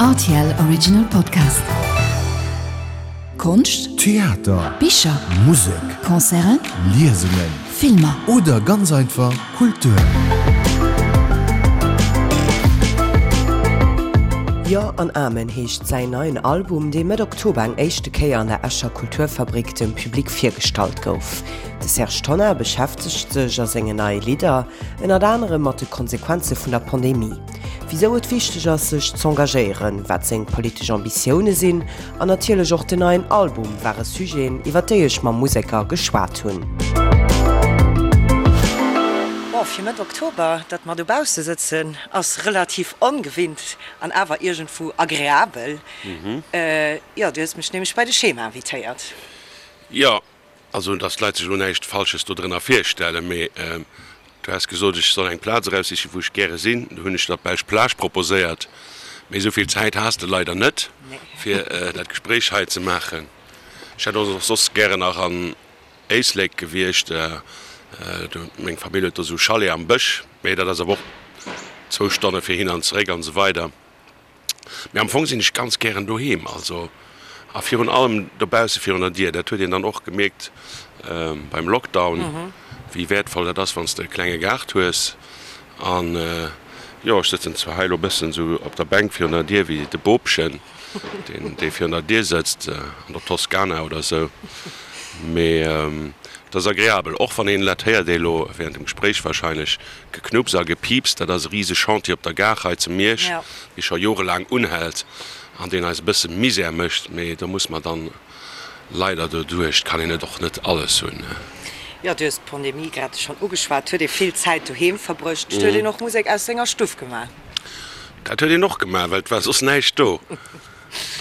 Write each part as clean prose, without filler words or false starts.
Rtl Original Podcast. Konscht, Theater, Bicher, Musek, Concerten, Liesungen Filmer. oder ganz einfach Kultur. Jo an Amen heescht säin neien Album, dee Mëtt Oktober eng éischte Kéier an der Escher Kulturfabrik dem Public virgestallt gouf. De Serge Tonnar beschäftegt sech a sengen neie Lidder ënnert anerem mat de Konsequenze vun der Pandemie, wisou et wichteg ass sech z'engagéieren, wat seng politesch Ambitioune sinn an natierlech och den neien Album ware Sujeten, iwwer déi ech mam Museker geschwat hunn. Bon, fir Mëtt Oktober, datt mer dobausse sëtzen, ass relativ ongewinnt an awer iergendwou agreabel. Jo, du hues mech nämlech bei de Schema invitéiert. Jo, Also, dass d'Leit sech elo näischt Falsches dodrënner virstellen, mee du has gesot, ech soll eng Plaz eraussichen, wou ech gäre sinn. Du hunn ech der d'Belsch Plage proposéiert, mee esou vill Zäit has de leider net, fir dat Gespréich hei ze maachen. Ech hätt och soss gären nach an Éislek gewiescht, meng Famill huet do esou Chalet am Bësch, mee dat ass awer och zwou Stonne fir hin an zeréck an esou weider. Mee am Fong sinn ech ganz gären doheem, also a virun allem dobausse virun der Dier. Dat huet een dann och gemierkt beim Lockdown, wéi wäertvoll dat ass, wann s de e klenge Gaart hues. An jo, ech sëtzen zwar hei elo e bëssen esou op der Bänk virun der Dier wéi de Bobchen, deen dee virun der Dier sëtzt an der Toskana oder esou, mee et ass agreabel, och wann een, dat héiert ee elo während dem Gespréich wahrscheinlech, Geknupps a Gepieps, dat ass e rise Chantier op der Gare hei zu Miersch, dee scho jorelaang unhält an deen eis e bësse Misär mécht, mee do muss mer dann leider doduerch, et kann een et och net alles hunn. Jo, du hues d'Pandemie grad schonn ugeschwat. Huet ee vill Zäit doheem verbruecht? Huet een och Musek aus senger Stuff gemaach? Dat huet een och gemaach, well et war soss näischt do.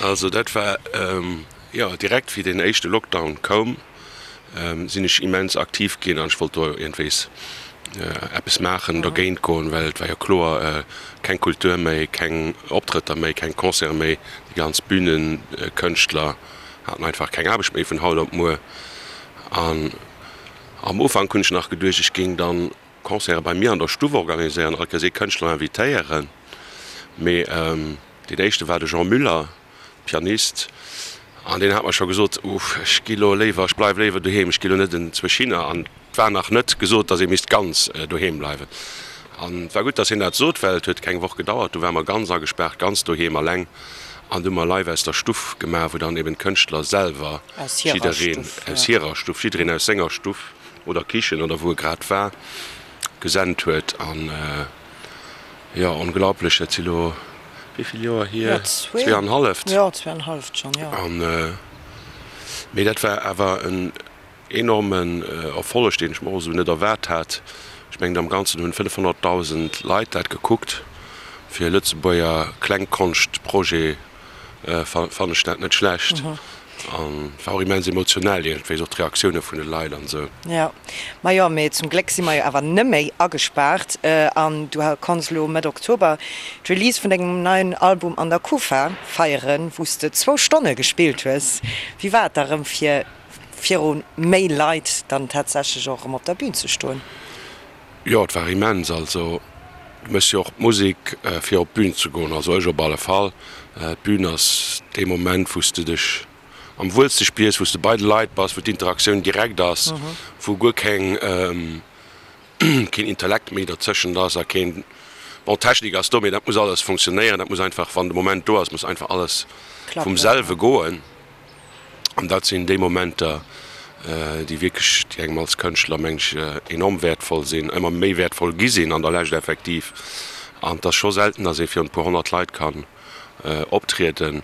Also dat war, jo, direkt wéi deen éischte Lockdown koum, sinn ech immens aktiv ginn an ech wollt do iergendwéis eppes maachen, dergéint goen, well et war jo kloer, keng Kultur méi, keng Optrëtter méi, keng Concerte méi, déi ganz Bühnenkënschtler haten einfach keng Aarbecht méi vun haut op muer. An am Ufank hunn ech nach geduecht, ech géing dann Concerte bei mir an der Stuff organiséieren, all Kéiers ee Kënschtler invitéieren, mee deen éischte war de Jean Müller. Pianist, an deen hat mer scho gesot, Uff, ech gi lo léiwer, ech bleiw léiwer doheem, ech gi lo net enzwousch hinner. An et war nach net gesot, datt ee misst ganz doheem bleiwen. An et war gutt, datt hien dat sot, well et huet keng Woch gedauert, du ware mer ganz agespaart, ganz doheem alleng, an du hu mer live aus der Stuff gemaach, wou dann eben d'Kënschtler selwer, jiddereen aus hirer Stuff, jiddereen aus senger Stuff oder Kichen oder wou e grad war, gesent huet. An jo, onglaublech, dat si lo wéi vill Joer hier? Zweeanhalleft. Jo, zweeanhalleft schonn, jo. An, mee dat war awer en enormen Erfolleg, deen ech mer och esou net erwaart hat. Ech mengen, am Ganzen hunn 500.000 Leit dat gekuckt. Fir e Lëtzebuerger Klengkonschtprojet fannen ech dat net schlecht. An war och immens emotionell iergendwéi, och d'Reaktioune vun de Leit an esou. Jo, ma jo, mee zum Gléck si mer jo awer neméi agespaart an du konns elo Mëtt Oktober d'Release vun dengem neien Album an der Kufa feieren, wou s de zwou Stonne gespillt hues. Wéi war et da rëm fir viru méi Leit dann tatsächlech och erëm op der Bün ze stoen? Jo, et war immens. Also du méchs jo och d'Musek fir op d'Bün ze goen, also ech op alle Fall. D'Bün ass dee Moment, wou s de dech am wuelste spiers, wou s de bei de Leit bass, wou d'Interaktioun direkt ass, wou guer keng, keen Intellekt méi derzëschent ass a keen, bon Technik ass do, mee dat muss alles funktionéieren, dat muss einfach, wann de Moment do ass, muss einfach alles vum selwe goen. An dat sinn déi Momenter, déi wierklech, déi engem als Kënschtler, meng ech, enorm wäertvoll sinn, ëmmer méi wäertvoll gi sinn an der Lescht effektiv. An et ass scho selten, datt ee virun e puer 100 Leit kann optrieden.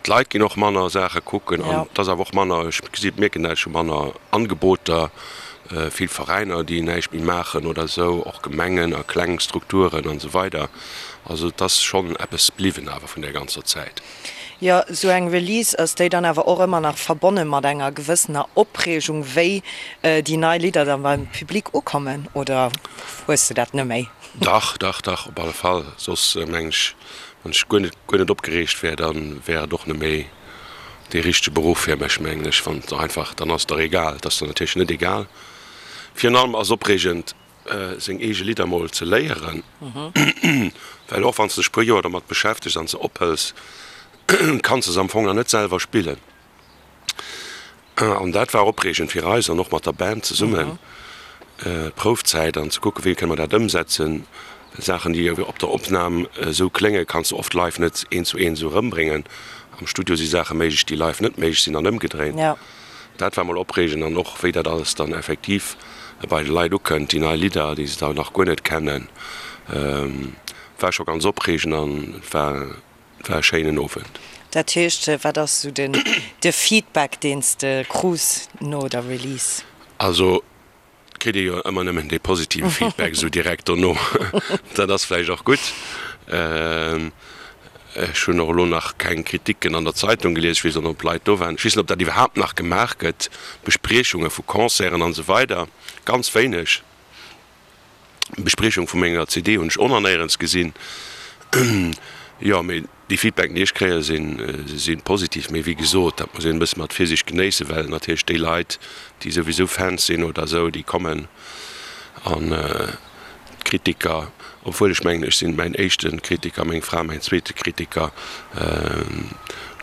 D'Leit ginn och manner Saache kucken an et ass awer och manner, ech gesi mierken dat, ech hu manner Angeboter, vill Veräiner, déi näischt méi maachen oder esou, och Gemengen a kleng Strukturen an esou weider. Also et ass schonn eppes bliwwen awer vun där ganzer Zäit. Jo, esou eng Release, ass déi dann awer och ëmmer nach verbonne mat enger gewëssener Opreegung, wéi déi nei Lidder dann beim Public ukommen, oder hues de dat neméi? Dach, dach, dach, op alle Fall. Soss meng ech, wann ech guer net, guer net opgereegt wär, da wär et och neméi dee richtege Beruff fir mech, mengen ech. Wann et einfach, dann ass et der egal. Et ass der natierlech net egal. Virun allem ass et opreegend. seng eege Lidder mol ze léieren, well och wann s de dech puer Joer domat beschäftegs an se ophëls, kanns de se am Fong nach net selwer spillen. An dat war opreegend fir eis an och mat der Band zesummen, d'Proufzäit an ze kucken, wéi kënne mer dat ëmsetzen. Saachen, déi op der Opnam esou kléngen, kanns de oft live net eent zu eent esou erëmbréngen. Am Studio si Saache méiglech, déi live net méiglech sinn an ëmgedréint. Dat war mol opreegend an och wéi dat alles dann effektiv bei de Leit ukënnt, déi nei Lidder, déi se da nach guer net kennen, war scho ganz opreegend an et war e schéinen Owend. Dat heescht, wat ass esou den de Feedback, deen s de krus no der Release? Also kritt ee jo ëmmer nëmmen dee positive Feedback esou direkt dono. Dat ass vläicht och gutt. Ech hunn och elo nach keng Kriticken an der Zeitung gelies. Ech weess och net, ob Leit do waren. Ech weess net, ob dat iwwerhaapt nach gemaach gëtt, Bespriechunge vu Concerten an esou weider. Ganz wéineg. Bespriechung vu menger CD hunn ech och nach néierens gesinn. Jo, mee déi Feedbacken, déi ech kréien, si positiv. Mee wéi gesot, dat muss een e bësse mat Virsiicht genéissen, well natierlech déi Leit, déi souwisou Fans sinn oder esou, déi kommen an d'Kritiker, obwuel ech mengen, ech sinn mäin éischte Kritiker, meng Fra mäin zweete Kritiker,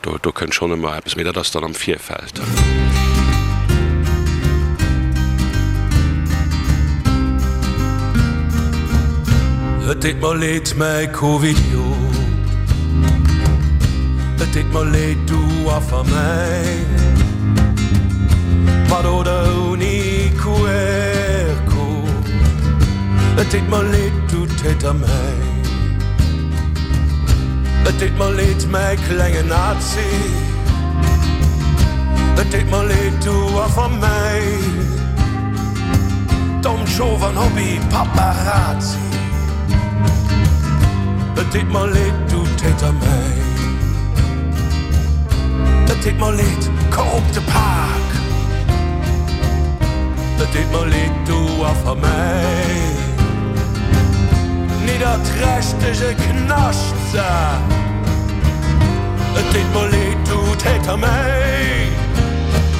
Do, do kënnt schonn ëmmer eppes, mee dat ass dann am Virfeld. Et deet mer leed, mäi Covidiot, et deet mer leed, du Affer mäin, mat oder ouni QR-Code, et deet mer leed, du Täter mäin. Et deet mer leed, mäi klenge Nazi, et deet mer leed, du Affer mäin, dommt Schof an Hobby Paparazzi, et deet mer leed, du Täter mäin, et deet mer leed, korrupte Pak, et deet mer leed, du Affer mäin. Nidderträchtege Knaschtsak, et deet mer leed, du Täter mäin.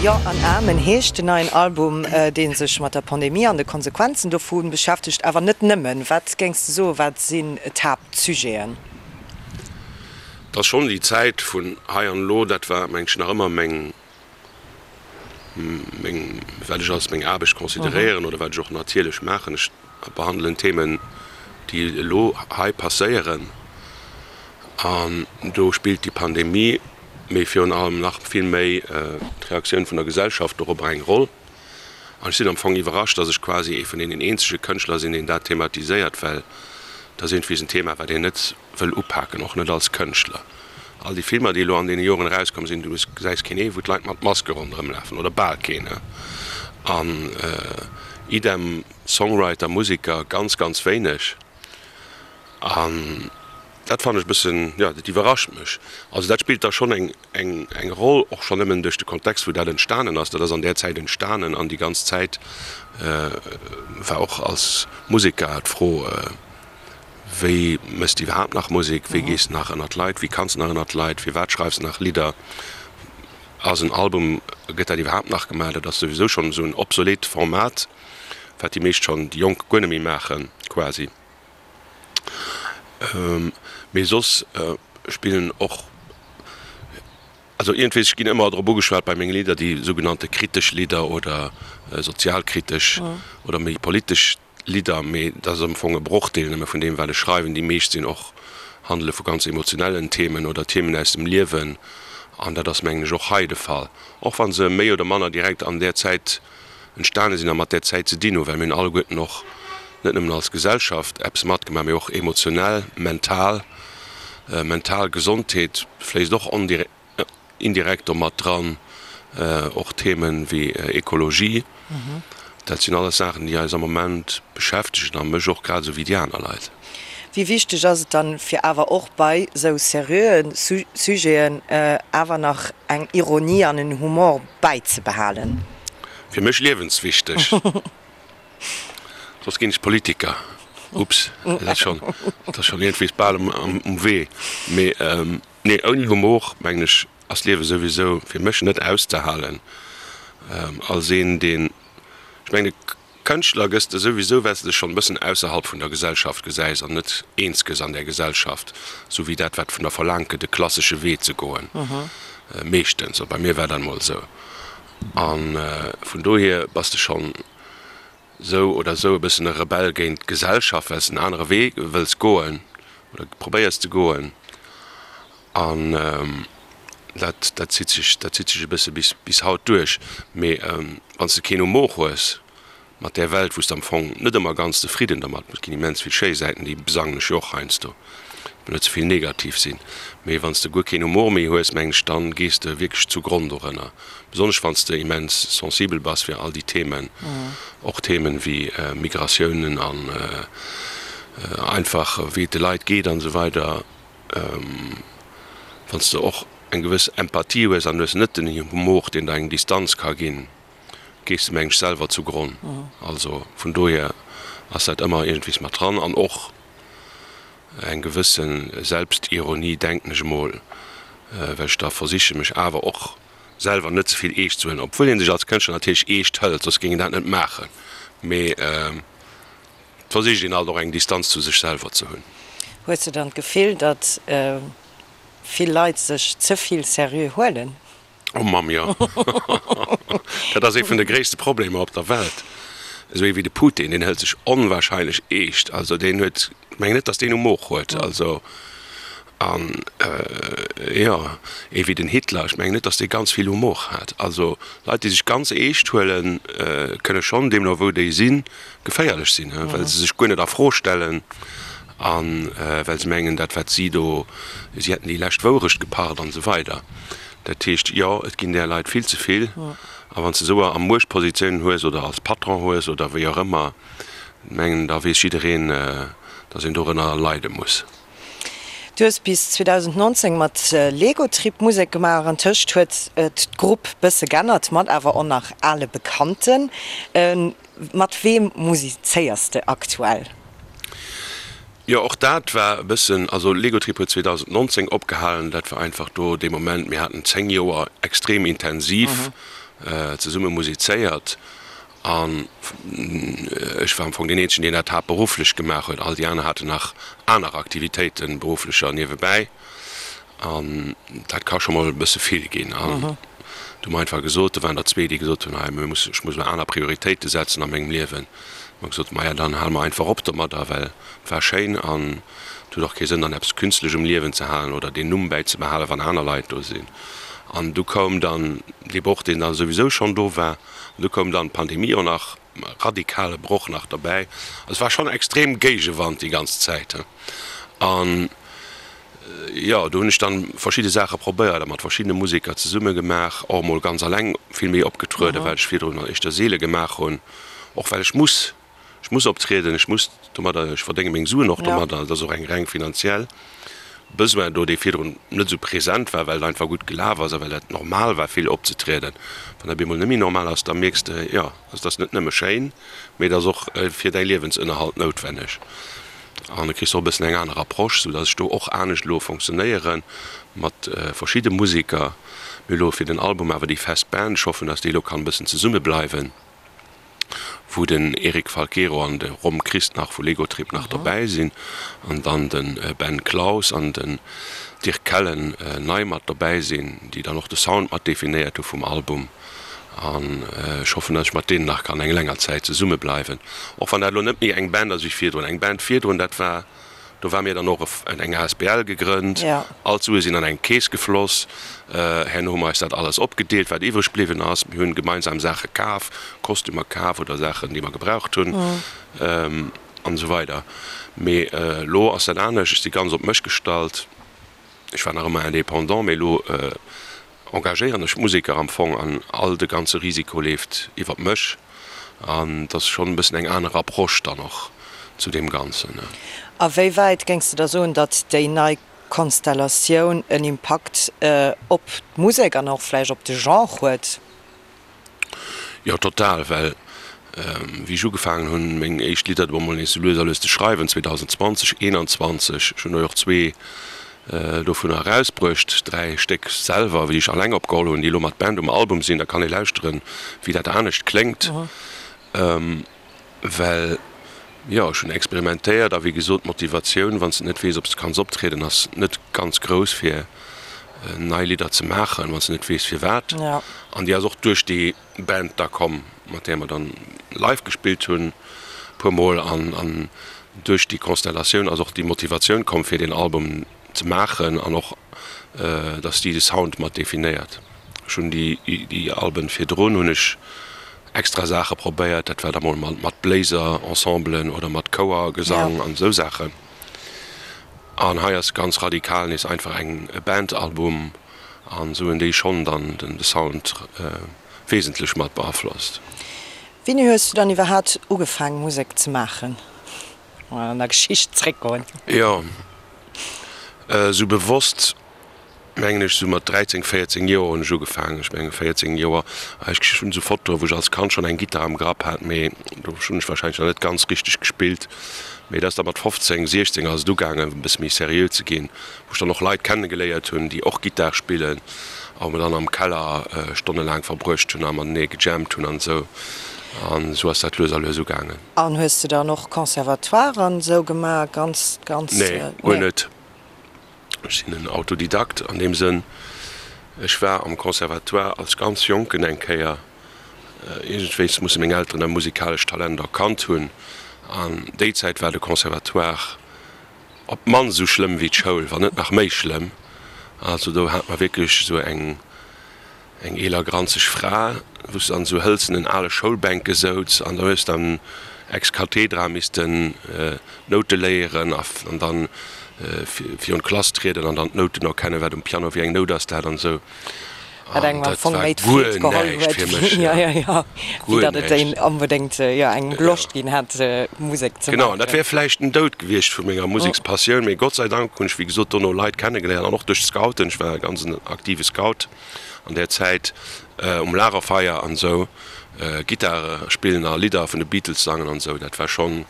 Jo an Amen heescht den neien Album, dee sech mat der Pandemie an de Konsequenzen dovu beschäftegt. Awer net nëmmen. Wat géings de soen, wat sinn d'Haaptsujeten? Et ass schonn déi Zäit vun hei an elo, dat war mengen ech nach ëmmer meng meng, wat ech als meng Aarbecht consideréieren oder wat ech och natierlech maachen. Ech behandelen Themen, déi elo hei passéieren an do spillt déi Pandemie, mee virun allem nach vill méi d'Reaktioun vun der Gesellschaft dorobber eng Roll. An ech sinn am Fong iwwerrascht, dass ech quasi ee vun deenen eenzege Kënschtler sinn, deen dat thematiséiert, well dat ass iergendwéi en Thema, wat een net wëll upaken, och net als Kënschtler. All déi Filmer, déi elo an deene Joren erauskomm sinn, du gesäis keen ee wou d'Leit mat Maske ronderëm lafen, oder bal keen. An idem Songwriter, Museker, ganz, ganz wéineg. An dat fannen ech e bëssen, jo, dat iwwerrascht mech. Also dat spillt da schonn eng, eng, eng Roll, och schonn nëmmen duerch de Kontext, wou dat entstanen ass. Dat ass an där Zäit entstanen an déi ganz Zäit war och als Museker d'Fro, Wéi mëss de iwwerhaapt nach Musek? Wéi gees de nach ënnert d'Leit? Wéi kanns de nach ënnert d'Leit? Firwat schreifs de nach Lidder? Ass en Album, gëtt dat iwwerhaapt nach gemaach? Dat ass souwisou schonn esou en obsolet Format, wat déi meescht schonn, déi Jonk guer net méi maachen quasi. Mee soss spillen och, also iergendwéi, ech ginn ëmmer drop ugeschwat bei menge Lidder, déi sougenannte kritesch Lidder oder sozialkritesch oder méi politesch Lidder, mee dat ass am Fong e Brochdeel nëmme vun deem, wat ech schreiwen. Déi meescht sinn och, handele vu ganz emotionellen Themen oder Themen aus dem Liewen an dat ass, mengen ech, och hei de Fall, och wa se méi oder manner direkt an där Zäit entstane sinn a mat där Zäit ze dinn hunn, well mir hunn alleguerten och net nëmmen als Gesellschaft eppes matgemaach, mee och emotionell, mental. Mental Gesondheet fléisst och indirekt do mat dran, och Themen wéi Ekologie. Dat sinn alles Saachen, déi eis am Moment beschäftegen a mech och grad esou wéi déi aner Leit. Wéi wichteg ass et dann, fir awer och bei esou seriöe Sujeten awer nach eng Ironie an en Humor bäizebehalen? Fir mech liewenswichteg. Soss ginn ech Politiker. Ups, dat ass schonn, dat ass schonn iergendwéi bal um Wee. Mee Nee, ouni Humor, mengen ech, ass d'Liewe souwisou fir mech net auszehalen. Als een, deen, ech mengen, de. Kënschtler gëss de souwisou, well s de dech schonn e bëssen ausserhalb vun der Gesellschaft gesäis an net eens gëss an där Gesellschaft, sou wéi dat, wat vun der verlaangt gëtt, e klassesche Wee ze goen, meeschtens. Bei mir war dat emol esou. A vun dohier bass de schonn sou oder sou e bëssen e Rebell géint d'Gesellschaft, well s de en anere Wee wëlls goen oder probéiers ze goen. An dat, dat zitt sech, dat zitt sech e bësse bis, bis haut duerch. Mee wann s de keen Humor hues mat där Welt, wou s de am Fong net ëmmer ganz zefridden dermat, et ginn immens vill schéi Säiten, déi besangen ech jo och heiansdo, et muss net ze vill negativ sinn, mee wann s de guer keen Humor méi hues, mengen ech, dann gees de wierklech zu Gronn dorënner. Besonnesch wann s de immens sensibel bass fir all déi Themen, och Themen wéi Migratiounen an einfach wéi et de Leit geet an esou weider. Wann s de och eng gewëss Empathie hues an hues net den Humor, deen der eng Distanz ka ginn, gees de mengen ech selwer zu Gronn. Also vun dohier ass dat ëmmer iergendwees mat dran an och eng gewësse Selbstironie, denken ech emol, well ech da versiche mech awer och selwer net ze vill eescht ze huelen, obwuel ee sech als Kënschtler natierlech eescht hëlt, soss géing een dat net maachen, mee. Et versicht een alt och eng Distanz zu sech selwer ze hunn. Hues de dann d'Gefill, datt vill Leit sech ze vill seriö huelen? Oh Mamm, jo. Dat ass ee vun de gréisste Problemer op der Welt. Esou ee wéi de Putin, deen hëlt sech onwahrscheinlech eescht. Also deen huet, ech mengen net, datt deen Humor huet. Also An, jo, ee wéi den Hitler, ech mengen net, datt dee ganz vill Humor hat. Also Leit, déi sech ganz eescht huelen, kënne schonn, deemno wou déi sinn, geféierlech sinn, well se sech guer net a Fro stellen a well se mengen, dat wat si do, si hätten déi lescht Wourecht gepacht an esou weider. Dat heescht, jo, et ginn där Leit vill ze vill. A wann s de esou a Muechtpositiounen hues oder als Patron hues oder wéi och ëmmer, mengen, da weess jiddereen, datt een dorënner leide muss. Du hues bis 2019 mat Legotrip Musek gemaach. Antëscht huet d'Grupp bësse g'ännert, mat awer och nach ale Bekannten. Mat weem musizéiers de aktuell? Jo, och dat war e bëssen, also Legotrip huet 2019 opgehalen. Dat war einfach do dee Moment, mir haten 10 Joer extrem intensiv zesumme musizéiert An ech war am Fong deen eenzegen, deen dat haaptberufflech gemaach huet. All déi aner haten nach aner Aktivitéiten, berufflecher, niewebäi. An dat ka scho mol e bësse vill ginn. An du hu mer einfach gesot, do waren der zwee, déi gesot hunn, hei, mir mussen, ech muss elo aner Prioritéite setzen a mengem Liewen. Hu mer gesot, maja, dann hale mer einfach op domadder, well et war schéin an et huet och kee Sënn, dann eppes künstlech um Liewen ze halen oder deen Numm bäizebehalen, wann aner Leit do sinn. An du koum dann dee Broch, deen da souwisou schonn do war. An du koum dann d'Pandemie och nach, radikale Broch nach derbäi. Also et war schonn extrem Géigewand déi ganz Zäit. An jo, do hunn ech dann verschidde Saache probéiert a mat verschiddene Museker zesumme gemaach, och emol ganz alleng vill méi opgetrueden, wat ech virdrun éischter seele gemaach hunn, och well ech muss. Ech muss optrieden, ech muss domadder, ech verdénge meng Suen och domadder. Et ass och eng reng finanziell Besoin do, dee virdrun net esou present war, well et einfach gutt gelaf ass a well dat normal war, vill opzetrieden. Wann dat op eemol net méi normal ass, da mierks de, jo, also et ass net nëmme schéin, mee et ass och fir däi Liewensënnerhalt noutwenneg. An da kriss de och e bëssen eng aner Approche, soudass ech do och anescht elo fonctionnéiere mat verschidde Museker. Mir hu elo fir den Album awer déi fest Band, ech hoffen, dass déi elo kann e bëssen zesummebleiwen. wou den Eric Falquero an de Rom Christ nach vu Legotrip nach dobäi sinn an dann de Ben Claus an den Dirk Kellen nei mat dobäi sinn, déi dann och de Sound mat definéiert hu vum Album. An ech hoffen, datt ech mat deenen nach kann eng länger Zäit zesumme bleiwen, och wann dat elo net méi eng Band ass wéi virdrun. Eng Band virdrun, dat war Do war mir dann och eng asbl gegrënnt. All d'Sue sinn an eng Keess gefloss. Herno hu mer eis dat alles opgedeelt, wat iwwreg bliwwen ass. Mir hunn gemeinsam Saache kaf, Kostümer kaf oder Saachen, déi mer gebraucht hunn an esou weider. Mee elo ass dat anescht. Ech si ganz op mech gestallt. Ech war nach ëmmer Indépendant, mee elo engagéieren ech Museker am Fong an all de ganze Risiko leeft iwwert mech an et ass schonn e bëssen eng aner Approche dann och zu deem Ganzen. A wéi wäit géings de da soen, datt déi nei Konstellatioun en Impakt op d'Musek an och vläicht op de Genre huet? Jo, total, well wéi ech ugefaangen hunn, meng éischt Lidder do emol nees sou lues a lues ze schreiwen, 2020, 21, ech hunn der jo och zwee dovunner erausbruecht, dräi Stéck selwer, déi ech alleng opgeholl hunn, déi elo mat Band um Album sinn, da kann ee lauschteren, wéi dat anescht kléngt. Well, jo, ech hunn experimentéiert a wéi gesot, d'Motivatioun, wann s de net weess, ob s de kanns optrieden, ass net ganz grouss, fir nei Lidder ze maachen, wann s de net weess, firwat. An déi ass och duerch déi Band da komm, mat där mer dann live gespillt hunn e puer Mol. An duerch déi Konstellatioun ass och déi Motivatioun komm, fir deen Album ze maachen an och, dass déi de Sound mat definéiert. Ech hunn déi Alben virdrun hunn ech extra Saache probéiert, dat war da mol mat Bléiser-Ensemblen oder mat Chouergesang an esou Saachen. An hei ass ganz radikal nees einfach eng e Band-Album an esou hunn déi schonn dann de Sound wesentlech mat beaflosst. Wéini hues du dann iwwerhaat ugefaang Musek ze maachen? Mol an der Geschicht zréckgoen. Jo, esou bewosst mengen ech, sou mat 13, 14 Joer hunn ech ugefaangen. Ech mengen 14 Joer, ech hunn esou Fotoe wou ech als Kand schonn eng Gittar am Grapp hat, mee do hunn ech wahrscheinlech nach net ganz richteg gespillt. Mee et ass da mat 15, 16 ass et ugaangen e bësse méi seriö ze ginn, wou ech dann och Leit kennegeléiert hunn, déi och Gittar spillen a wou mer dann am Keller stonnelaang verbruecht hunn a matenee gejammt hunn an esou. An esou ass dat lues a lues ugaangen. An hues de dann och Conservatoire an esou gemaach, ganz, ganz? Nee, guer net. Ech sinn en Autodidakt an deem Sënn. Ech war am Conservatoire als ganz Jonken eng Kéier. Iergendwéis musse meng Elteren e musikalescht Talent erkannt hunn. An déi Zäit war de Conservatoire op d'mannst esou schlëmm wéi d'Schoul, wann net nach méi schlëmm. Also do hat mer wierklech esou eng. Eng eeler granzeg Fra, wou s de an esou hëlzenen ale Schoulbänke souz an da hues dann ex cathedra missten d'Noute léieren an dann virun d'Klass trieden an dann d'Nouten erkennen, wat um Piano wéi eng Nout ass dat an esou. Wat engem am Fong méi d'Freed geholl huet, wéi datt et een onbedéngt engem Loscht ginn hätt Musek ze maachen. Genau, an dat wär vläicht den Doud gewiescht vu menger Musekspassioun, mee Gott sei Dank hunn ech wéi gesot dono Leit kennegeléiert an och duerch d'Scouten, ech war e ganz en aktive Scout, an där Zäit um Lagerfeier an esou Gittare spillen a Lidder vun de Beatles sangen an esou, dat war schonn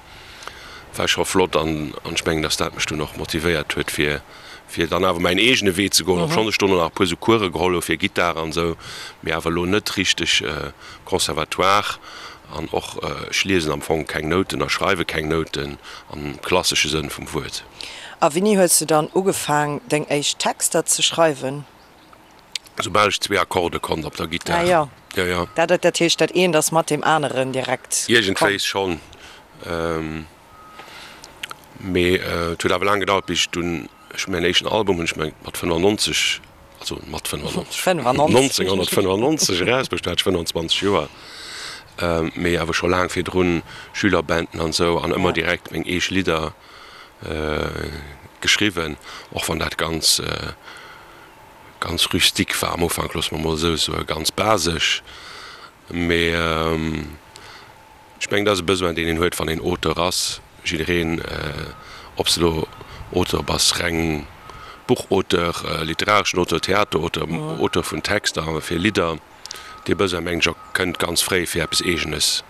war scho flott an ech mengen, dass dat mech dunn och motivéiert huet fir fir dann awer mäin eegene Wee ze goen, obschonn ech dono nach e puer esou Course geholl hu fir Gittar an esou, mee awer elo net richteg Conservatoire an och ech liesen am Fong keng Nouten a schreiwe keng Nouten am klassesche Sënn vum Wuert. A wéini hues du dann ugefaang deng éischt Texter ze schreiwen? Soubal ech zwee Akkorde konnt op der Gittar. Ah jo. Jo, jo. Dat, dat heescht, dat eent ass mat deem aneren direkt komm? Iergendwéis schonn. Mee et huet awer laang gedauert, bis ech dunn, ech hu mäin éischten Album hunn ech mat 95, also mat 95, 1995 erausbruecht, do hat ech 25 Joer. Mee awer scho laang virdrun Schülerbanden an esou an ëmmer direkt meng eege Lidder geschriwwen, och wann dat ganz Ganz rustique war am Ufank, loosse mer mol esou soen, ganz basesch. Mee ech mengen, dat ass e Besoin, deen een huet, wann een Auteur ass. Jiddereen, ob s de elo Auteur bass, reng Buchauteur, literareschen Auteur, Theaterauteur, Auteur vun Texter fir Lidder, dee Besoin, mengen ech, kënnt ganz fréi, fir eppes Eegenes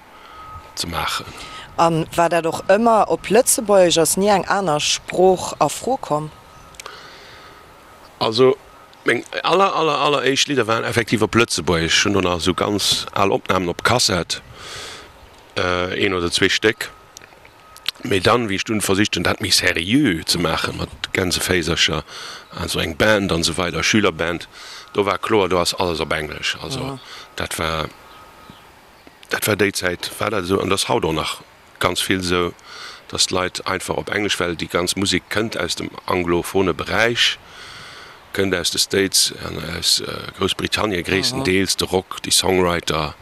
ze maachen. A war dat och ëmmer op Lëtzebuergesch? Ass ni eng aner Sprooch a Fro komm? Also meng aller aller aller éischt Lidder waren effektiv op Lëtzebuergesch. Ech hunn do nach esou ganz al Opnamen op Kassett, een oder zwee Stéck. Mee dann, wéi ech dunn versicht hunn, dat méi seriö ze maachen, mat Gänseféisercher an esou eng Band an esou weider, Schülerband, do war kloer, do ass alles op Englesch. Also dat war, dat war déi Zäit war dat esou an dat ass haut och nach Ganz vill esou, dass d'Leit einfach op Englesch, well déi ganz Musek kënnt aus dem anglophone Beräich, kënnt aus de States an aus Groussbritannien gréisstendeels, de Rock, déi Songwriter,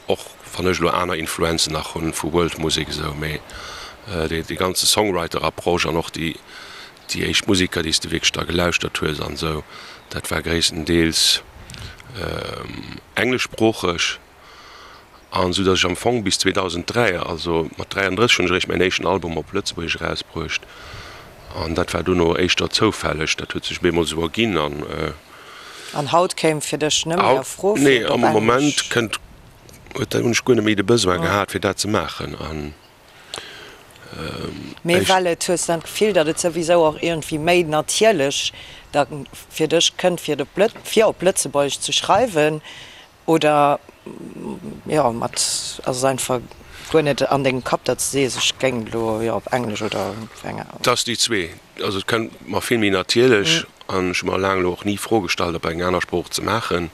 och wann ech elo aner Influenzen nach hunn vu World Musek esou, mee dee ganze Songwriter-Approche an och déi déi éischt Museker, déi s de wierklech da gelauschtert hues an esou, dat war gréisstendeels engleschsproocheg. An esou datt ech am Fong bis 2003, also mat 33 hunn ech eréischt mäin éischten Album op Lëtzebuergesch erausbruecht. An dat war dono éischter zoufälleg, dat huet sech op eemol esou erginn an. An haut kéim fir dech net méi a Fro fir et op Englesch? Nee, am Moment kënnt, huet, hunn ech guer net méi de Besoin gehat fir dat ze maachen an. Mee well et, hues dann d'Gefill, datt et souwisou och iergendwéi méi natierlech da fir dech kënnt fir et op Lët, fir op Lëtzebuergesch ze schreiwen? Oder jo, mat ass et einfach. Guer net an dengem Kapp, datt s de sees, ech géing elo, jo, op Englesch oder op enger. Et ass déi zwee. Also et kënnt mer vill méi natierlech an ech hu mer laang elo och ni Fro gestallt, op eng aner Sprooch ze maachen.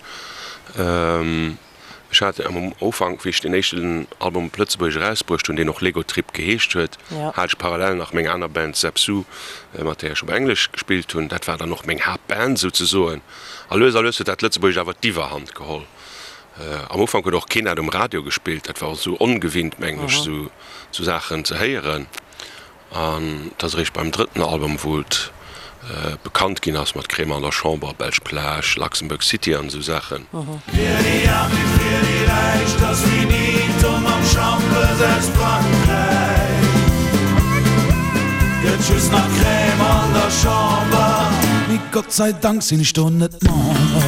Ech hat am Ufank, wéi ech deen éischten Album op Lëtzebuergesch erausbruecht hunn, deen och Lego Trip geheescht huet, hat ech parallel nach meng aner Band Zep Su, mat där ech op Englesch gespillt hunn. Dat war dann och meng Haaptband souzesoen. A lues a lues huet dat Lëtzebuergescht awer d'Iwwerhand geholl. Am Ufank huet och keen dat um Radio gespillt. Dat war och esou ongewinnt, mengen ech, esou Saachen ze héieren. An et ass eréischt beim drëtten Album, wou et bekannt ginn ass mat Crémant an der Chamber, Belsch Plage, Luxembourg City an esou Saachen. Fir déi Aarm wéi fir déi Räich, 't ass finito mam Schampes aus Frankräich. Gëtt just nach Crème an der Chamber. Mee Gott sei Dank sinn ech do net Member.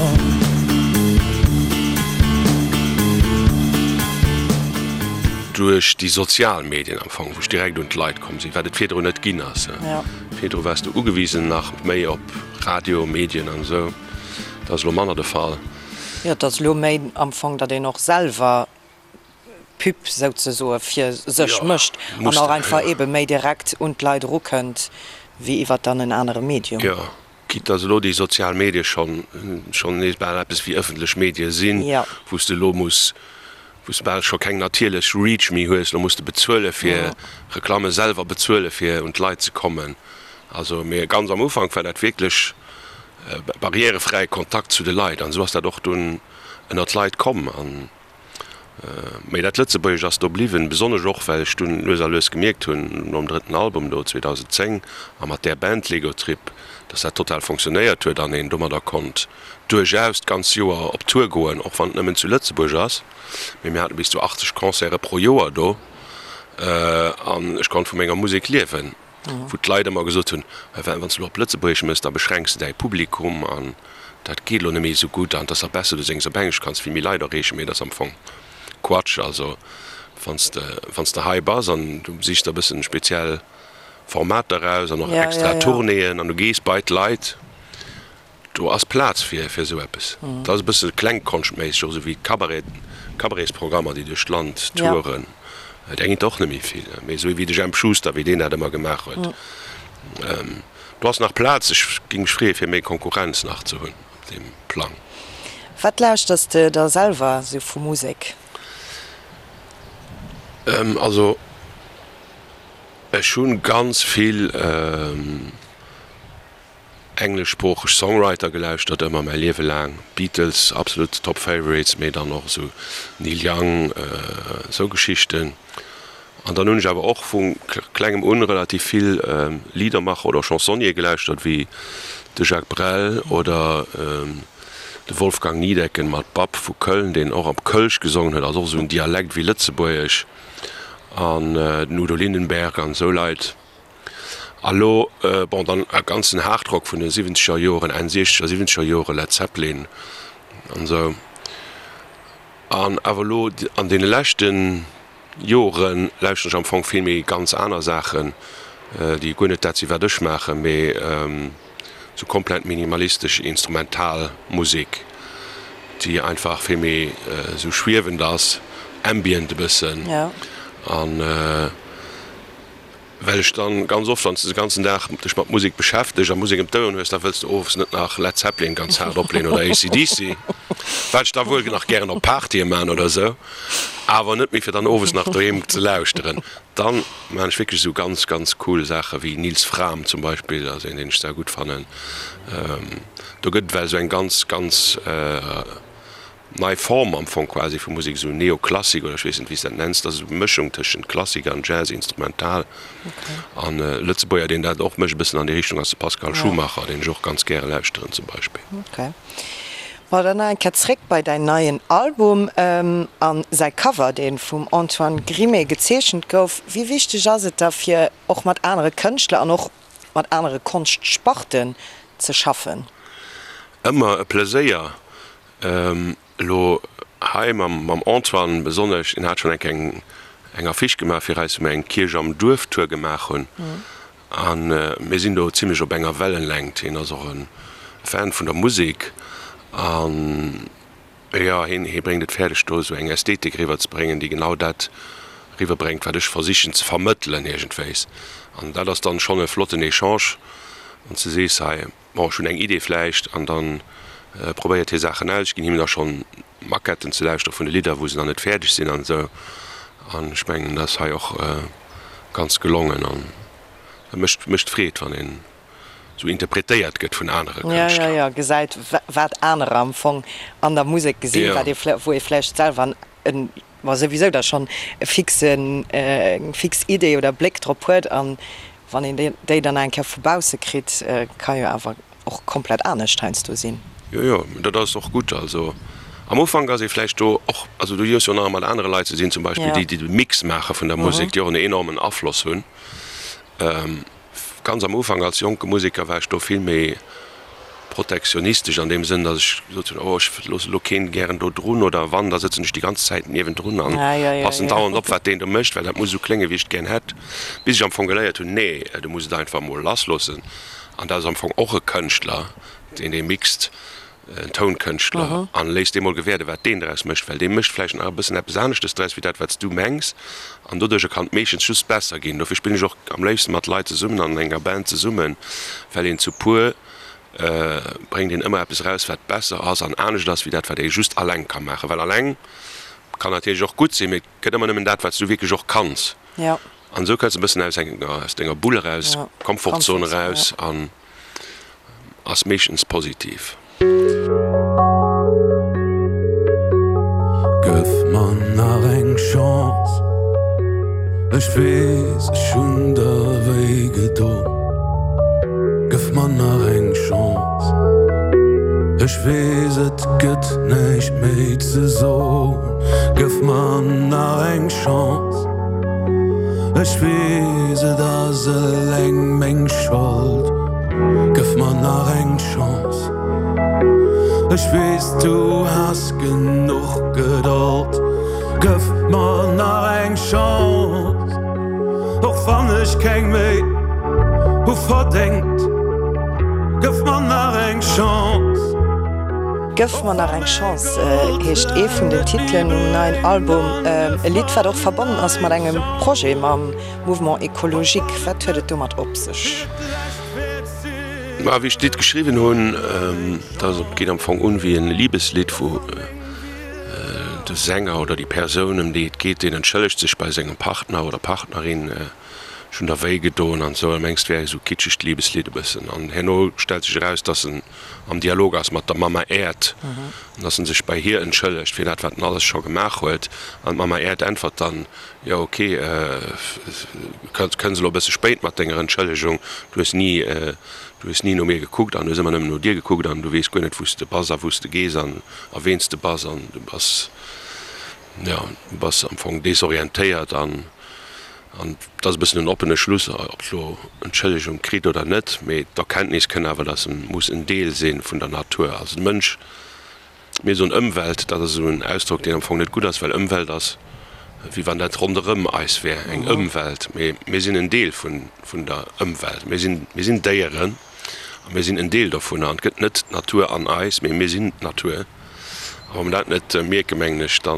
Duerch déi sozial Medien am Fong, wou ech direkt un d'Leit komm sinn, wat et virdrun net ginn ass. Virdru waars du ugewisen nach méi op Radio, Medien an esou. Dat ass elo manner de Fall. Jo, et ass elo méi am Fong, datt een och selwer Pub souzesoe fir sech mécht an och einfach eebe méi direkt un d'Leit erukënnt wéi iwwer dann en anere Medium. Jo, quitte datt elo déi sozial Medie schonn schonn nees bal eppes wéi ëffentlech Medie sinn, wou s de elo muss, wou s de bal scho keng natierlech Reach méi hues, elo muss de bezuele fir Reklamme selwer bezuele fir un d'Leit ze kommen. Also, mee ganz am Ufank war dat wierklech barrièrefräie Kontakt zu de Leit an esou ass dat och dunn ënner d'Leit komm. An Mee dat Lëtzebuergesch ass do bliwwen, besonnesch och well ech dunn lues a lues gemierkt hunn, nom drëtten Album do 2010 a mat där Band Lego Trip, dass dat total fonctionnéiert huet an een domadder konnt duerchaus d'ganz Joer op Tour goen, och wann et nëmmen zu Lëtzebuerg ass. Mee mir hate bis zu 80 Concerte pro Joer do an ech konnt vu menger Musek liewen, wou d'Leit ëmmer gesot hunn, Wann s de elo op Lëtzebuergesch méchs, da beschränks de däi Publikum an dat geet elo net méi esou gutt an et ass nach besser, du séngs op Englesch, kanns vill méi Leit erreechen. Mee dat ass am Fong Quatsch. Also wann s de, wann s de hei bass an du sichs der e bëssen speziell Formater eraus an och extra Tournéeën an du gees bei d'Leit, Do ass Plaz fir fir esou eppes. Dat ass e bësse klengkonschtméisseg, och esou wéi d'Cabaret, Cabaretsprogrammer, déi duerch d'Land touren. Där ginn et och net méi vill, mee esou wéi de Jemp Schuster, wéi deen dat ëmmer gemaach huet. Do ass nach Plaz. Ech géing mech freeë fir méi Konkurrenz nach ze hunn op deem Plang. Wat lauschters de da selwer esou vu Musek? Also ech hu ganz vill. Engleschsproocheg Songwriter gelauschtert, ëmmer mäi Liewe laang. Beatles, absolut top favorites, mee dann och esou Neil Young, esou Geschichten. An dann hunn ech awer och vu klengem un relativ vill Liedermacher oder Chansonnier gelauschtert, wéi de Jacques Brel oder de Wolfgang Niedecken mat Bab vu Köln, deen och op Kölsch gesongen huet, also och esou en Dialekt wéi Lëtzebuergesch, an den Udo Lindenberg an esou Leit. A lo, bon, dann e ganzen Hardrock vun de siwwenzeger Joren, Enn siechzeger, siwwenzeger Jore, Led Zeppelin an esou. An awer elo an deene leschte Jore lauschteren ech am Fong vill méi ganz aner Saachen, déi guer net dat sinn, wat ech maachen, mee esou komplett minimalistesch instrumental Musek, déi einfach vill méi esou schwiewend ass, ambient e bëssen. An. Well ech dann ganz oft, wann s de de ganzen Dag dech mat Musek beschäfteg a Musek ëm d'Oueren hues, da wëlls de owes net nach Led Zeppelin ganz haart opleen oder AC/DC, wat ech da wuel nach gären op Partye man oder sou, awer net méi fir dann owes nach doheem ze lauschteren. Dann man ech wierklech esou ganz, ganz cool Saache wéi Nils Frahm zum Beispill, ass een deen ech sehr gutt fannen. Do gëtt et well esou eng ganz, ganz. Nei Form am Fong quasi vu Musek, esou Neoklassik oder ech weess net wéi s dat nenns, dat ass esou Mëschung tëschent Klassik an Jazz, Instrumental. An e Lëtzebuerger deen dat och mécht e bëssen an déi Richtung ass de Pascal Schumacher, deen ech och ganz gäre lauschteren zum Beispill. Ok. Bon, dann nach eng Kéier zréck bei däin neien Album an säi Cover, dee vum Antoine Grimée gezeechent gouf. Wéi wichteg ass et da fir och mat anere Kënschtler an och mat anere Konschtsparten ze schaffen? Ëmmer e Pleséier. Elo hei mam Antoine besonnesch, deen hat schonn eng Kéier eng Affiche gemaach fir eis, wou mir eng Kierch am Duerf Tour gemaach hunn. A mir sinn do zimlech op enger Wellenlängt. Hien ass och e Fan vun der Musek an jo, hien, hie bréngt et fäerdeg do esou eng Ästhetik eriwwer ze bréngen, déi genau dat. Riwwerbréngt, wat ech versichen ze vermëttelen iergendwéis. An dat ass dann schonn e flotten Echange, wann s de sees, hei, bon, ech hunn eng Idee vläicht, an dann probéiert hie Saachen aus. Ech ginn him da schonn Maquetten ze lauschtere vun de Lidder, wou se nach net fäerdeg sinn an esou. An ech mengen, dat ass hei och ganz gelongen an et mécht, mécht Freed, wann een esou interpretéiert gëtt vun anere Kënschtler. Jo, jo, jo, gesäit, wat anerer am Fong an der Musek gesinn, wat ee, wou ee vläicht selwer en Ma souwisou da schonn e fixen, eng fix Idee oder Bléck drop huet an wann een déi dann nach eng Kéier vu bausse kritt, ka jo awer och komplett anescht heiansdo sinn. Jo, jo, dat ass och gutt. Also am Ufank ass ee vläicht do och, also du hues jo nach mat anere Leit ze dinn, zum Beispill déi, déi de Mix maache vun der Musek, déi och en enormen Afloss hunn. Ganz am Ufank als jonke Museker war ech do vill méi protektionistesch an deem Sënn, datt ech gesot hunn, oh ech loosse elo keen gären do drun oder wann, da sëtzen ech déi ganz Zäit niewendrun an passen dauernd op, wat deen do mécht, well dat muss esou kléngen, wéi ech et gär hätt. Bis ech am Fong geléiert hunn, nee, du muss et einfach emol lassloossen. An dat ass am Fong och e Kënschtler, deen dee mixt. en Tounkënschtler, an léiss dee mol gewäerden, wat deen draus mécht, well dee mécht vläicht nach e bëssen eppes aneschtes draus, wéi dat, wat s du mengs, an doduercher kann et meeschtens just besser ginn. Dofir spillen ech och am léifsten mat Leit zesummen, an enger Band zesummen, well een zu puer bréngt een ëmmer eppes eraus, wat besser ass an anescht ass, wéi dat, wat ee just alleng ka maachen. Well alleng kann natierlech och gutt sinn, mee et gëtt ëmmer nëmmen dat, wat s du wierklech och kanns. An esou kënns de e bëssen aus denger Bull eraus, Komfortzon eraus an. Ass meeschtens positiv. Gëff mer nach eng Chance, ech weess ech hunn der wéi gedon. Gëff mer nach eng Chance, ech weess et gëtt näischt méi ze son. Gëff mer nach eng Chance. Ech weess et ass eleng meng Schold, gëff mer nach eng Chance. Ech weess du has genuch Gedold, gëff mer nach eng Chance. Och wann ech keng méi hu verdéngt, gëff mer nach eng Chance. Gëff mer nach eng Chance heescht ee vun den Titelen um neien Album. E Lidd, wat och verbonnen ass mat engem Projet mam Mouvement Ecologique. Wat huet et domat op sech? Ma wéi ech d'Lidd geschriwwen hunn, dat geet am Fong un wéi e Libeslidd, wou de Sänger oder déi Persoun, ëm déi et geet, deen entschëllegt sech bei sengem Partner oder Partnerin, ech hunn der wéi gedoen an esou. A mengs, et wär esou kitschegt Libeslidd e bëssen. An herno stellt sech eraus, dass en am Dialog ass mat der Mama Äerd, an dass en sech bei hir entschëllegt fir dat, wat en alles scho gemaach huet. An d'Mama Äerd äntwert dann, Jo, ok, kënns elo e bësse spéit mat denger Entschëllegung, du hues ni, du hues ni no mir gekuckt an hues ëmmer nëmmen no dir gekuckt an du weess guer net, wou s de bass a wou s de gees an a ween s de bass an du bass, jo, du bass am Fong desorientéiert an. An et ass e bëssen en oppene Schluss, ob elo Entschëllegung kritt oder net, mee d'Erkenntnis kënn awer, dass e muss en Deel si vun der Natur. Also de Mënsch, mir soen Ëmwelt, dat ass esou en Ausdrock, deen am Fong net gutt ass, well Ëmwelt ass, wéi wann dat ronderëm eis wär, eng Ëmwelt. Mee mir sinn en Deel vun der Ëmwelt. Mir sinn, mir sinn Déieren a mir sinn en Deel dovunner. An et gëtt net d'Natur an eis, mee mir sinn d'Natur. A wa mer dat net mierken, mengen ech, da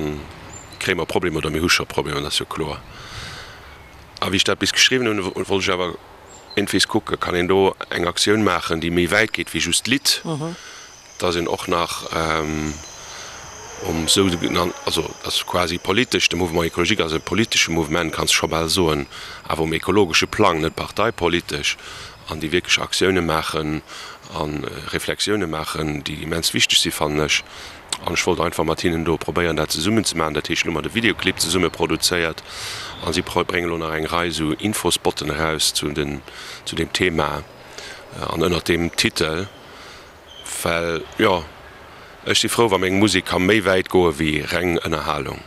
kréie mer Problemer oder mir hu scho Problemer, dat ass jo kloer. A wéi ech dat bis geschriwwen hunn, wollt ech awer iergendwees kucken, kann een do eng Aktioun maachen, déi méi wäit geet wéi just d'Lidd, dass een och nach um sougenannten, also dass quasi politesch, de Mouvement écologique ass e politesche Mouvement, kanns de scho bal soen, awer um ekologesche Plang, net parteipolitesch, an déi wierklech Aktioune maachen a Reflexioune maachen, déi immens wichteg si fannen ech. An ech wollt einfach mat hinnen do probéieren dat zesummen ze maachen. Dat heescht, elo hu mer de Videoclip zesumme produzéiert a si bréngen elo nach eng Rei esou Infospotten eraus zu den, zu deem Thema an ënnert deem Titel. Well jo, ech si frou wa meng Musek ka méi wäit goe wéi reng Ënnerhalung.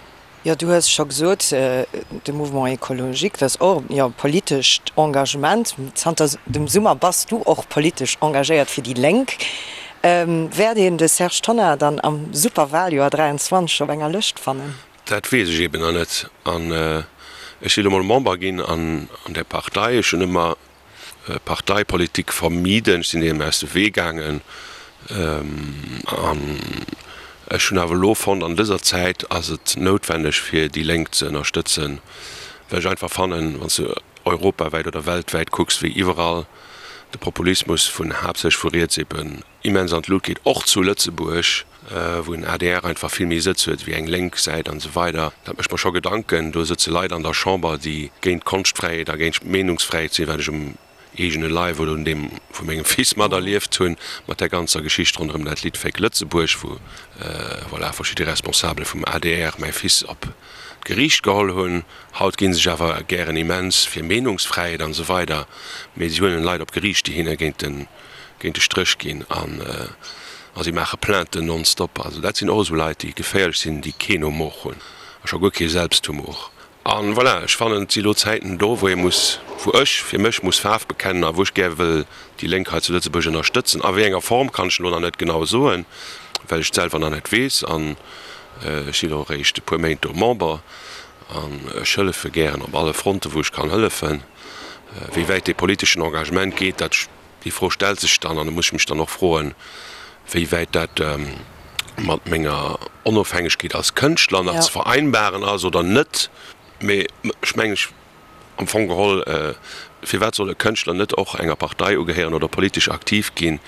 Jo, du hues scho gesot, de Mouvement écologique, dat ass och, jo, politescht Engagement. Zanter dem Summer bass du och politesch engagéiert fir déi Lénk. Wäert een de Serge Tonnar dann am Superwaljoer 23 op enger Lëscht fannen? Dat weess ech eben nach net. An ech si lo mol Member ginn an där Partei. Ech hunn ëmmer Parteipolitik vermiden, ech sinn deem aus de Wee gaangen an ech hunn awer elo fonnt, an dëser Zäit ass et noutwenneg fir déi Lénk ze ënnerstëtzen. Well ech einfach fannen, wann s de europawäit oder weltwäit kucks, wéi iwwerall de Populismus vun haaptsächlech vu riets eben immens an d'Lut geet, och zu Lëtzebuerg, wou en adr einfach vill méi Sëtz huet wéi eng lénk Säit an esou weider, dat mécht mer scho Gedanken. Do sëtze Leit an der Chamber, déi géint d'Konschtfräiheet a géint d'Meenungsfräiheet sinn, wat ech um eegene Leif oder un deem vu mengem Fils materlieft hunn, mat där ganzer Geschicht ronderëm dat Lidd Féck Lëtzebuerg, wou, voilà, verschidde Responsabele vum adr mäi Fils op d'Geriicht geholl hunn. Haut gi sech awer gären immens fir Meenungsfräiheet an esou weider, mee si huelen Leit op Geriicht, déi hinne géint de, géint de Stréch ginn an a si maache Plainten nonstop. Also dat sinn och esou Leit, déi geféierlech sinn, déi keen Humor hunn a scho guer kee Selbsthumor. An voilà, ech fannen, et si lo Zäiten do, wou ee muss, wou ech fir mech muss Faarf bekennen a wou ech gär wëll déi Lénk hei zu Lëtzebuerg ënnerstëtzen. A wéi enger Form kann ech elo nach net genau soen, well ech et selwer nach net weess. An ech sinn och eréischt e puer Méint do Member an ech hëllefe gären op alle Fronten, wou ech kann hëllefen. Wéi wäit dee politeschen Engagement geet, dat Déi Fro stellt sech dann, an do muss ech mech dann och froen, wéi wäit dat mat menger Onofhängegkeet als Kënschtler nach ze vereinbaren ass oder net. Mee ech mengen, ech, am Fong geholl, firwat soll e Kënschtler net och enger Partei ugehéieren oder politesch aktiv ginn?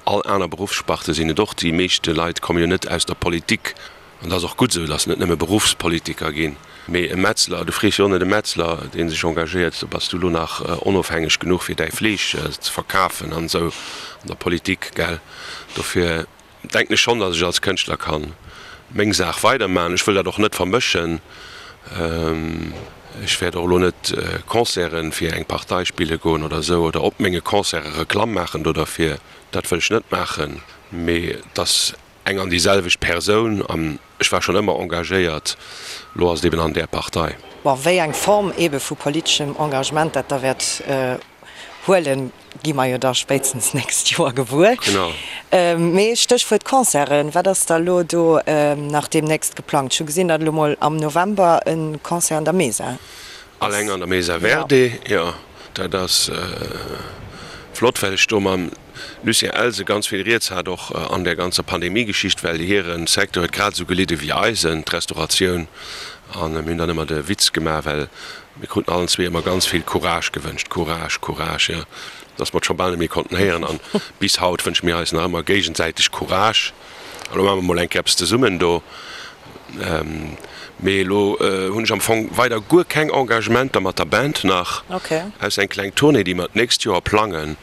All aner Beruffssparte sinn et och. Déi meeschte Leit komme jo net aus der Politik. An et ass och gutt esou, datt net nëmme Beruffspolitiker ginn, mee e Metzler, du frees jo och net e Metzler, dee sech engagéiert, so bass du elo nach onofhängeg genuch fir däi Fleesch ze verkafen an esou an der Politik, gell. Dofir denken ech schonn, datt ech als Kënschtler ka meng Saach weidermachen. Ech wëll dat och net vermëschen. Ech wäert och elo net Concerte fir eng Partei spille goen oder esou oder op menge Concerte Reklamm maachen do derfir. Dat wëll ech net maachen, mee datt Eng an déi selwecht Persoun an ech war schonn ëmmer engagéiert, elo ass et eben an där Partei. Bon, wéi eng Form ebe vu politeschem Engagement dat da wäert huelen, gi mer jo da spéitstens d'nächst Joer gewuer. Genau. Mee Stéchwuert Concerten, wat ass da elo do nach deemnächst geplangt? Ech hu gesinn, datt elo mol am November e Concert an der Mesa ass. Alleng an der Mesa Verde, jo. Dat ass flott, well ech do mam Lucien Elsen ganz vill Rieds hat, och an där ganzer Pandemie-Geschicht, well hire Secteur huet grad esou gelidde wéi eisen, d'Restauratioun. A mir hunn dann ëmmer de Witz gemaach, well mir kruten allen zwee ëmmer ganz vill Courage gewënscht, Courage, Courage, jo, dass mer et scho bal net méi konnten héieren. An bis haut wënsche mir eis nach ëmmer géigesäiteg Courage. Elo maache mer mol eng Kéier eppes zesummen do. Mee elo hunn ech am Fong weider guer keng Engagementer mat der Band nach, ausser eng kleng Tournée, déi mer d'nächst Joer plangen,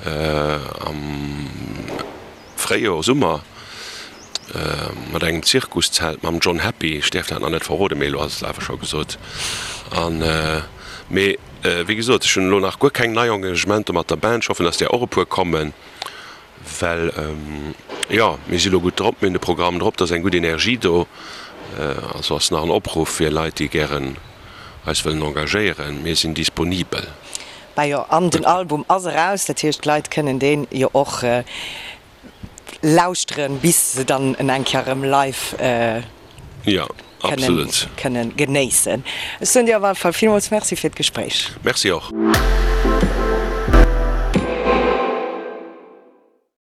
am Fréijoer, Summer, mat engem Zirkuszelt mam John Happy. Ech däerf dat nach net verroden, mee elo ass et awer scho gesot. An, mee wéi gesot, ech hunn elo nach guer keng nei Engagementer mat der Band. Ech hoffen, dass där och e puer kommen. Well jo, mir si lo gutt drop, mir hunn de Programm drop, et ass eng gutt Energie do. Also ass nach en Opruff fir Leit, déi gären eis wëllen engagéieren, mir sinn disponibel. Bah jo, an den Album ass eraus, dat heescht d'Leit kënnen deen jo och lauschteren, bis se dann en eng Kéier erëm live kënnen genéissen. Ech soen dir op alle Fall villmools Merci fir d'Gespréich. Merci och.